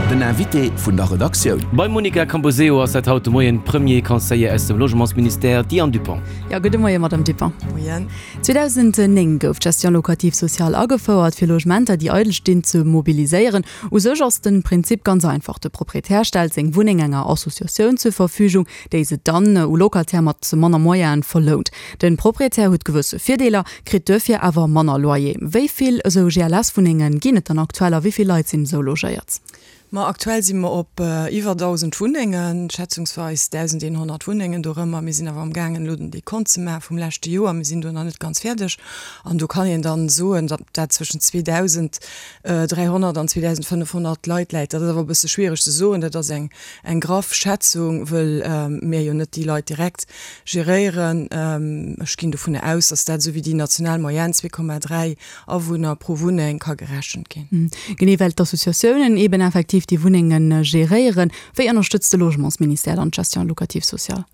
Den Invité vun der Redaktioun. Beim Monica Camposeo ass dat haut de Moien d'Premier Conseiller aus dem Logementsministère, d'Diane Dupont. Jo, gudde Moien, Madame Dupont. Moien. 2009 gouf d'Gestion locative sociale agefouert, fir Logementer, déi eidel stinn, ze mobiliséieren. U sech ass de Prinzip ganz einfach, De Proprietär stellt seng Wunneng enger Associatioun zur Verfügung, déi se dann u Locataire mat manner Moyenen verlount. De Proprietär huet gewësse Virdeeler, kritt duerfir awer manner Loyer. Wéi vill esou GLS-Wunnenge ginn et dann aktuell a wéi vill Leit sinn esou logéiert? Ma aktuell si mer op iwwer 1.000 Wunnengen, schätzungsweis 1.100 Wunnengen dorëmmer. Mir sinn awer am gaangen elo den Dekont ze maache vum leschte Joer. Mir sinn do nach net ganz fäerdeg an do kann een dann soen, datt dat zwëschen 2.300 an 2.500 Leit läit. Dat ass awer e bësse schwiereg ze soen. Dat ass eng Eng graff Schätzung, wëll mir jo net déi Leit direkt geréieren. Ech ginn dovunner aus, datt dat esou wéi déi national Moyenne, 2,3 Awunner pro Wunneng, ka gerechent ginn. Genee well d'Associatiounen eeben effektiv déi Wunnenge geréieren. Wéi ënnerstëtzt de Logementsministère dann d'Gestion locative sociale?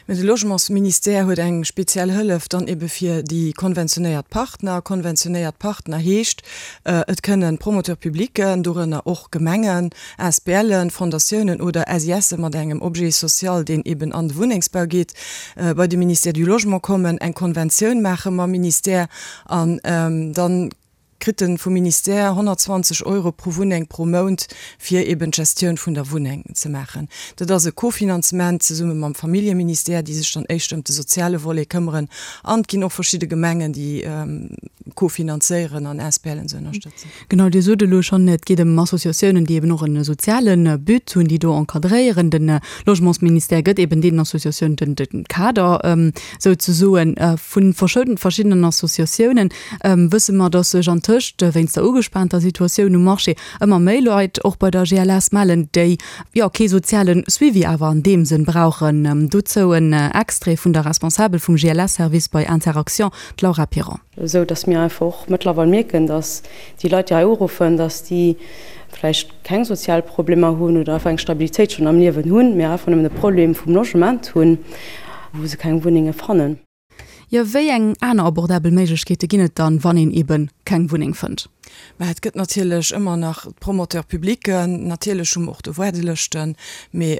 Mä de Logementsministère huet eng speziell Hëllef dann ebe fir déi konventionéiert Partner. Konventionéiert Partner heescht, et kënnen Promoteurs publics, dorënner och Gemengen, ASBLen, Fondatiounen oder SISe mat engem Objet social, deen eben an de Wunnengsbau geet, bei de Ministère du Logement kommen, eng Konventioun maache mam Ministère an dann, kritt en vum Ministère 120 Euro pro Wunneng pro Mount, fir eben d'Gestioun vun der Wunneng ze maachen. Dat ass e Kofinanzement zesumme mam Familljeministère, déi sech dann éischter ëm de soziale Volet këmmeren. An et ginn och verschidde Gemengen, déi kofinanzéieren an ASBLen ze ënnerstëtzen. Genau, Dir sot elo schonn, et geet ëm Associatiounen, déi eben och e soziale But hunn, déi do encadréieren. De Logementsministère gëtt eben deenen Associatiounen de Kader souzesoen. Vu verschiddenen Associatiounen wësse mer, dass sech antëscht wéinst der ugespaanter Situatioun um Marché ëmmer méi Leit och bei der GLS mellen, déi jo kee soziale Suivi awer an deem Sënn brauchen. Dozou en Extrait vun der Responsabel vum GLS-Service bei Interaction, d'Laura Piron. Esou dass mir einfach och mëttlerweil mierken, dass déi Leit, déi hei uruffen, dass déi vläicht keng sozial Problemer hunn oder einfach eng Stabilitéit schonn am Liewen hunn, mee einfach nëmmen e Problem vum Logement hunn, wou se keng Wunnenge fannen. Jo, wéi eng aner abordabel Méiglechkeete ginn et dann, wann een ebe keng Wunneng fënnt? Mä et gëtt natierlech ëmmer nach d'Promoteurs publics, natierlech hu mer och do Waardelëschten, mee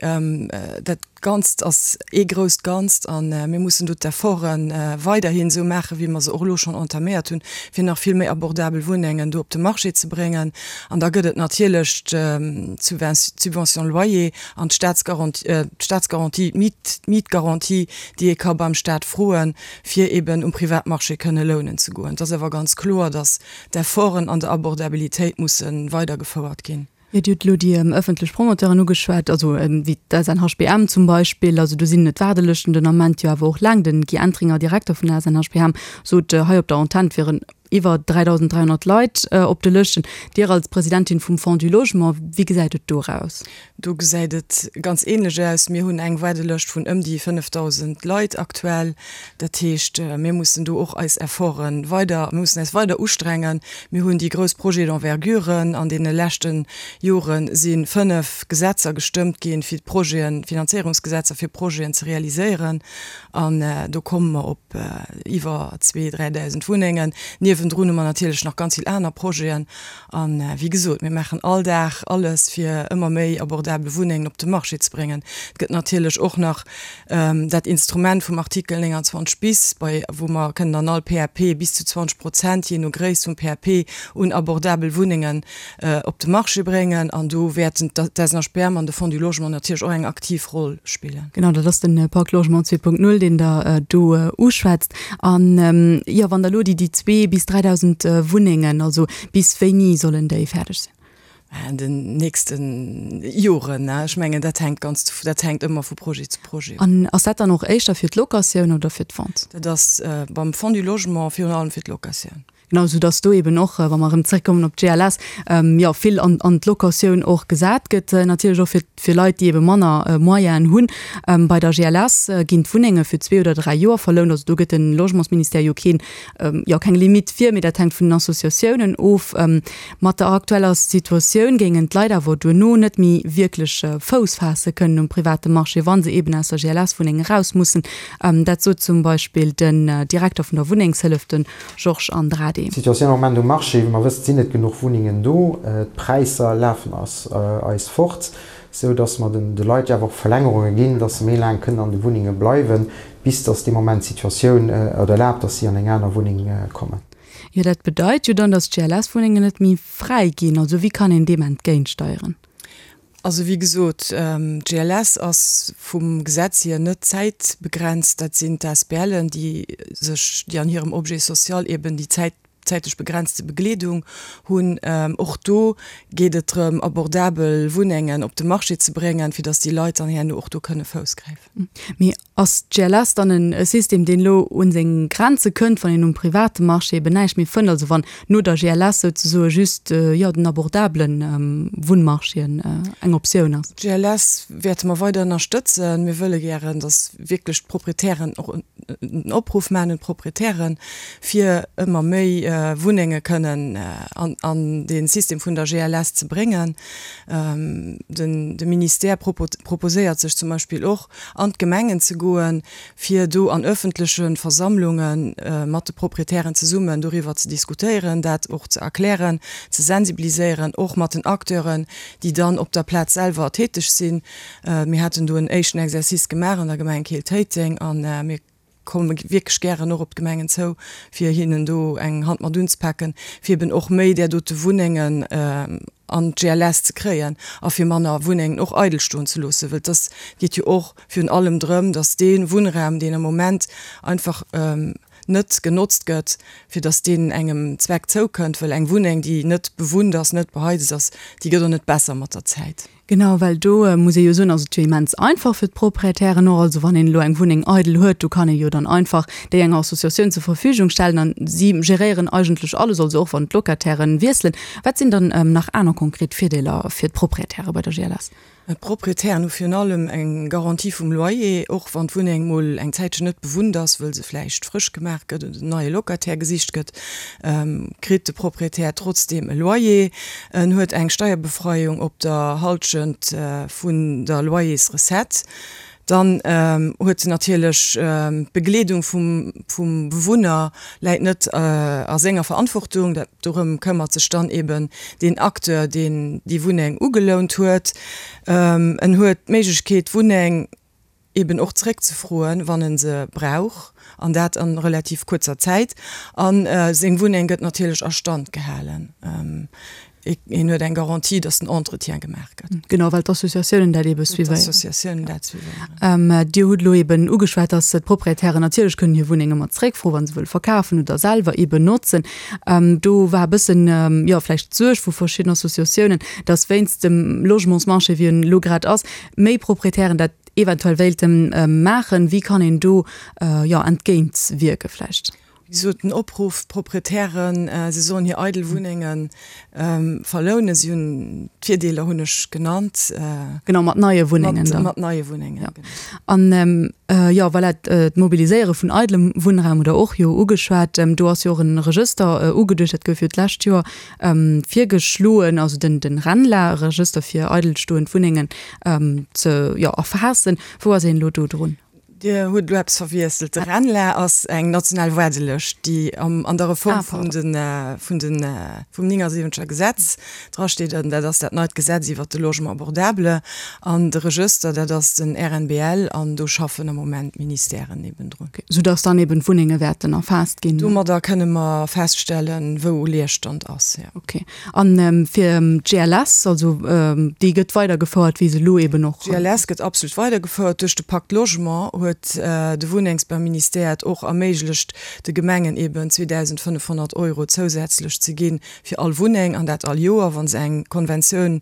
dat Ganzt ass ee grousst Ganzt a mir mussen do d'Efforte weiderhin esou maachen, wéi mer se och elo schonn entaméiert hunn, fir nach vill méi abordabel Wunnengen do op de Marché ze bréngen. An da gëtt et natierlech d'Subvention loyer an d'Staatsgarantie, d'Mietgarantie, déi ee ka beim Staat froen, fir eben um Privatmarché kënne lounen ze goen. Et ass awer ganz kloer, datt d'Efforten an der Abordabilitéit musse weidergefouert ginn. Jo, Dir hutt elo déi ëffentlech Promoteuren ugeschwat, also wéi d'SNHBM zum Beispill. Also do sinn d'Waardelëschten den Ament jo awer och laang. Den Guy Entringer, Direkter vun der SNHBM, sot hei op der Antenn, et wieren iwwer 3.300 Leit op de Lëschten. Dir als Presidentin vum Fonds du Logement, wéi gesäit et do eraus? Do gesäit et ganz ähnlech aus. Mir hunn eng Waardelëscht vun ëm déi 5.000 Leit aktuell. Dat heescht, mir mussen do och eis Efforte weider, mir mussen eis weider ustrengen. Mir hunn déi grouss Projets d'envergure. An deene leschte Jore si 5 Gesetzer gestëmmt ginn, fir d'Projeten, Finanzéierungsgesetzer fir Projeten ze realiséieren. An do komme mer op iwwer zwee, 3.000 Wunnengen. Niewendrun hu mer natierlech nach ganz vill aner Projeten. A wéi gesot, mir maachen all Dag alles, fir ëmmer méi abordabel Wunnengen op de Marché ze bréngen. Et gëtt natierlech och nach dat Instrument vum Artikel 29 bis, bei wou mer kënnen an all PAP bis zu 20 Prozent, jee no Gréisst vum PAP, un abordabel Wunnengen op de Marché bréngen. An do wäerten d'SNHBM an de Fonds du Logement natierlech och eng aktiv Roll spillen. Genau, dat ass de Pacte Logement 2.0, deen Der do uschwätzt. An, jo, wann Der elo déi zwee bis 3.000 Wunnengen, also bis wéini sollen déi fäerdeg sinn? An den nächste Joren. Ech mengen, dat hänkt ganz, dat hänkt ëmmer vu Projet zu Projet of. An ass dat dann och éischter fir d'Locatioun oder fir d'Vente? Dat ass beim Fonds du Logement virun allem fir d'Locatioun. Genau, sou dass do eben och, wa mer erëm zréckkommen op d'GLS, jo, vill an, an d'Locatioun och gesat gëtt, natierlech och fir, fir Leit, déi ebe manner Moyenen hunn. Bei der GLS ginn d'Wunnenge fir zwee oder dräi Joer verlount. Also do gëtt de Logementsministère jo keen, jo, keng Limitt vir, mee dat hänkt vun den Associatiounen of. Mat der aktueller Situatioun géingen d'Leit awer duerno net méi wierklech Fouss faasse kënnen um private Marché, wa se eben aus der GLS-Wunneng eraus mussen. Dat sot zum Beispill den Direkter vun der Wunnengshëllef, de Georges Andrade. AD. D'Situatioun am Moment um Marché, wéi mer wëssen, sinn net genuch Wunnengen do. D'Präisser lafen eis fort, sou datt mer de Leit jo awer och Verlängerunge ginn, datt se méi laang kënnen an de Wunnenge bleiwen, bis datt dee Moment d'Situatioun et erlaabt, datt si an eng aner Wunneng kommen. Jo, dat bedeit jo dann, datt d'GLS-Wunnengen net méi fräi ginn. Also wéi kann een deem entgéintsteieren? Also wéi gesot, d'GLS ass vum Gesetz hier net zäitbegrenzt. Dat sinn d'ASBLen, déi sech, déi an hirem Objet social eben déi Zäit, zäitlech begrenzte Begleedung hunn. Och do geet et drëm, abordabel Wunnengen op de Marché ze bréngen, fir datt déi Leit dann herno och do kënne Fouss gräifen. Mee Ass d'GLS dann e System, deen elo un seng Grenze kënnt, wann een um private Marché eben näischt méi fënnt, also wann no der GLS souzesoe just, jo, den abordabele Wunnmarché eng Optioun ass? D'GLS wäerte mer weider ënnerstëtzen. Mir wëlle gären, datt wierklech d'Proprietären och en Opruff maachen un d'Proprietären, fir ëmmer méi Wunnenge kënnen an dee System vun der GLS ze bréngen. De Ministère proposéiert sech zum Beispill och, an d'Gemengen ze goen, fir do an öffentleche Versammlunge mat de Proprietären zesummen doriwwer ze diskutéieren, dat och ze erklären, ze sensibiliséieren, och mat den Acteuren, déi dann op der Plaz selwer täteg sinn. Mir haten do en éischten Exercice gemaach an der Gemeng Keel-Téiteng a mir komme wierklech gären och op d'Gemengen zou, fir hinnen do eng Hand mat unzepaken, fir eben och méi där dote Wunnengen an d'GLS ze kréien a fir manner Wunnengen och eidel stoen ze loossen. Well et ass, geet jo och virun allem drëm, datt dee Wunnraum, deen am Moment einfach net genotzt gëtt, fir datt deen engem Zweck zoukënnt. Well eng Wunneng, déi net bewunnt ass, net beheizt ass, déi gëtt och net besser mat der Zäit. Genau, well do muss ee jo soen, ass et jo immens einfach fir d'Proprietären och. Also wann een elo eng Wunneng eidel huet, do kann ee jo dann einfach déi enger Associatioun zur Verfügung stellen an si geréieren eigentlech alles, also och wann d'Locatairen wiesselen. Wat sinn dann nach aner konkret Virdeeler fir d'Proprietäre bei der GLS? D'Proprietären hu virun allem eng Garantie vum Loyer, och wann d'Wunneng mol eng Zäitchen net bewunnt ass, wëll se vläicht frësch gemaach gëtt oder en neie Locataire gesicht gëtt, kritt de Proprietär trotzdeem e Loyer. En huet eng Steierbefreiung op der Halschent vun der Loyersrecette. Dann huet en natierlech d'Begleedung vum Bewunner läit net a senger Verantwortung. Dat dorëm këmmert sech dann eben deen Acteur, deen déi Wunneng ugelount huet. En huet d'Méiglechkeet, d'Wunneng eben och zeréckzefroen, wann en se brauch, an dat a relativ kuerzer Zäit. A seng Wunneng gëtt natierlech a Stand gehalen. Hien huet eng Garantie, datt den Entretien gemaach gëtt. Genau, well d'Associatiounen dat ebe suivéieren. D'Associatiounen dat suivéieren. Dir hutt elo eben ugeschwat, datt d'Proprietären natierlech kënnen hir Wunneng ëmmer zeréckfroen, wa se wëlle verkafen oder selwer eben notzen. Do war e bëssen, jo, vläicht d'Suerg vu verschidden Associatiounen, datt wéinst dem Logementsmarché, wéi en elo grad ass, méi Proprietären dat eventuell wéilte maachen. Wéi kann een do, jo, entgéint wierke vläicht? Wéi gesot, den Opruff, d'Proprietären, se sollen hir eidel Wunnenge verlounen. Si hunn, d'Virdeeler hunn ech genannt. Genau, mat neie Wunnengen dann. Mat neie Wunnengen, genau. An, jo, voilà, d'Mobiliséiere vun eidelem Wunnraum hutt Der och jo ugeschwat. Do ass jo och e Regëster ugeduecht, dat gouf jo d'lescht Joer virgeschloen, also den den RENLA-Regëster fir eidelstoend Wunnengen ze, jo, erfaassen. Wou ass een elo do drun? Dir hutt elo eppes verwiesselt. De RENLA ass eng national Waardelëscht, déi am an der Reform vun de vun de vum 79er Gesetz drasteet. An dat ass dat neit Gesetz iwwert de Logement abordable. An de Regëster, dat ass den RNBL, an do schaffen am Moment d'Ministèren eben drun. Soudass dann eben d'Wunnenge wäerten erfaasst ginn. Domadder kënne mer feststellen, wou Leerstand ass, jo. Ok. A fir d'GLS, also déi gëtt weidergefouert, wéi se elo eben och. D'GLS gëtt absolut weidergefouert. Duerch de Pacte Logement huet de Wunnengsbauministère et och erméiglecht, de Gemengen eben 2.500 Euro zousätzlech ze gi fir all Wunneng, an dat all Joer, wa se eng Konventioun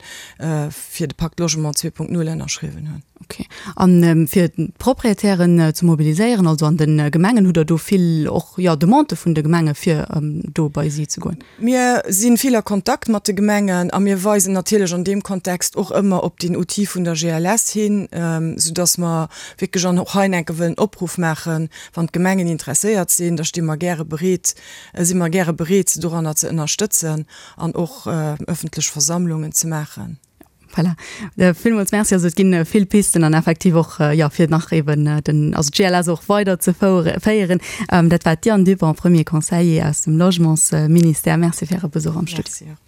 fir de Pacte Logement 2.0 ënnerschriwwen hunn. Ok. A fir d'Proprietären ze mobiliséieren, also an de Gemengen, hutt Der do vill och, jo, Demandë vun de Gemenge fir do bei si ze goen? Mir si vill a Kontakt mat de Gemengen a mir weisen natierlech an deem Kontext och ëmmer op deen Outil vun der GLS hin, soudass mer wierklech an och hei enke wëllen Opruff maachen, wann d'Gemengen interesséiert sinn, da sti mer gäre bereet, si mer gäre bereet, se doranner ze ënnerstëtzen an och ëffentlech Versammlungen ze maachen. Voilà. Villmools Merci. Also et ginn vill Pisten an effektiv och, jo, fir nach eben den, also d'GLS och weider ze féieren. Dat war d'Diane Dupont, Premier Conseiller aus dem Logementsministère. Merci fir Äre Besuch am Studio. Merci och.